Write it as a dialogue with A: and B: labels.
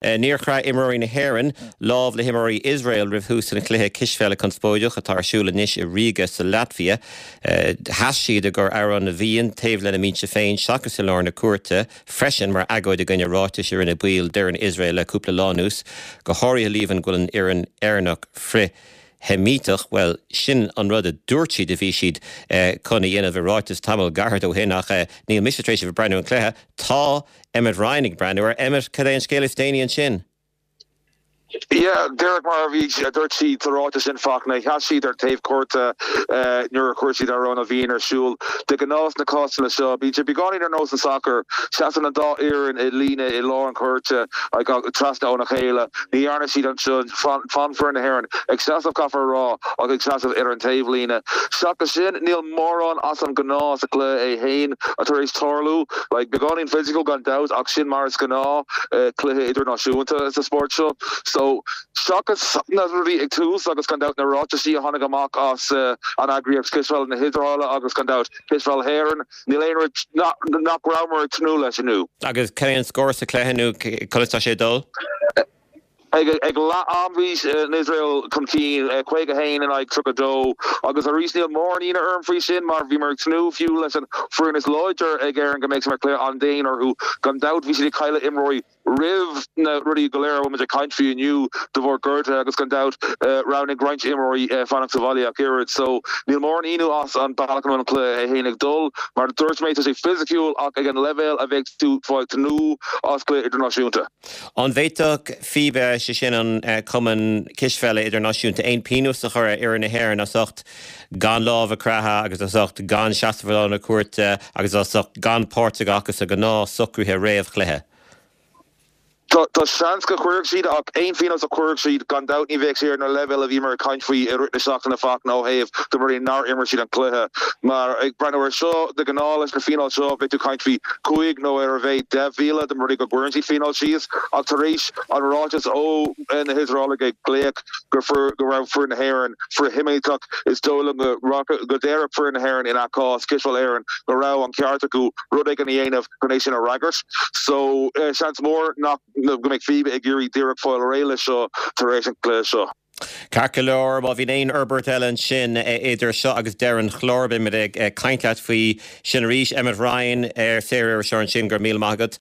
A: Níor chraith imreoirí na hÉireann lámh le himreoirí Iosrael roimh thús an chluiche cispheile conspóideach atá ar siúl anois i Ríoga sa Laitvia. Sheas siad i gcomhair Amhrán na bhFiann taobh lena mbinse féin seachas i lár na cúirte freisin mar agóid i gcoinne ráitis a rinne baill d'fhoireann Iosrael le cúpla lá anuas, go háirithe líomhain go bhfuil an fhoireann Éireannach frith-Sheimíteach. Bhuel, sin an rud a dúirt siad a bhí siad chun a dhéanamh i ráiteas tamall gairid ó shin ach níl mise tar éis a bheith ag breathnú ar an chluiche. Tá. Emmet Ryan ag breathnú air. Emmet, cad é an scéal is déanaí ansin?
B: Yeah, díreach mar a bhí, a dúirt siad sa ráiteas sin, Fachtna, sheas siad ar taobh cúirte nuair a chuir siad Amhrán na bhFiann ar siúl. De ghnáth sna cásanna seo, bíonn sé beagáinín ar nós an sacar, seasann an dá fhoireann i líne i lár an chúirte, trasna óna chéile. Ní dhearna siad ansin. D'fhan foireann na hÉireann ag seasamh, caithfear a rá, ach ag seasamh ar an taobhlíne. Seachas sin, níl mórán as an ngnáth sa chluiche é féin tar éis tarlú. Like, beagáinín physical gan dabht ach sin mar is gnáth cluiche idirnáisiúnta sa spórt seo. So, seachas na rudaí ag tús agus gan dabht na ráitisí a tháinig amach as an eagraíocht Cispheile na hIosraeile agus gan dabht Cispheil hÉireann, níl aon rud nach rabhamar ag tnúth leis inniu.
A: Agus cad é an scór sa chluiche nó conas tá sé ag dul?
B: Ag leath am bhí Iosrael chun cinn, 51 in aghaidh 32, agus arís níl mórán ionadh orm faoi sin mar bhíomar ag tnúth fiú leis an foireann is láidir ag Éirinn go mbeadh sé mar chluiche an-dian orthu. Gan dabht bhí siad ag cailleadh imreoirí roimh na rudaí go léir a bhfuil muid ag caint faoi inniu de bharr gortuithe agus gan dabht roghnaigh roinnt imreoirí fanacht sa bhaile ach oiread. So níl mórán ionadh as an bealach a bhfuil an cluiche é féin ag dul. Mar a dúirt mé tá sé fisiciúil ach ag an leibhéal a bheadh tú ag tnúth as cluiche idirnáisiúnta.
A: An bhféadfadh FIBA, sé sin an Cumann Cispheile Idirnáisiúnta, aon pionós a chur ar fhoireann na hÉireann as ucht gan lámh a chroitheadh agus as ucht gan seasamh i lár na cúirte agus as ucht gan páirt a ghlacadh sa ghnáth-socruithe réamh-chluiche?
B: Tá seans go gcuirfeadh siad ach aon phionós a chuirfeadh siad, gan dabht ní bheadh sé ar na leibhéil a bhíomar ag caint faoi i rith na seachtaine Fachtna ó thaobh de rudaí nár imir siad an cluiche. Mar ag breathnú air seo, de ghnáth leis na fíneáil seo bheadh tú ag caint faoi chúig nó ar a mhéad 10,000 dá mba rud é go gcuireann siad fíneáil síos ach tar éis an ráiteas ó na hIosraelaigh ag glaoch go go raibh foireann na hÉireann frith-Sheimíteach is dóigh liom go go déarfadh foireann na hÉireann ina cás, Cispheil Éireann, go raibh an ceart acu rud éigin a dhéanamh chun é sin a fhreagairt. So seans mór nach go mbeidh FIBA ag iarraidh díreach fáil réidh leis seo tar éis an chluiche seo.
A: Ceart go leor, má bhíonn aon fhorbairt eile ansin idir seo agus deireadh an chláir, beimid ag caint leat faoi sin arís. Emmet Ryan, ar Saoririseoir ansin, go raibh míle maith agat.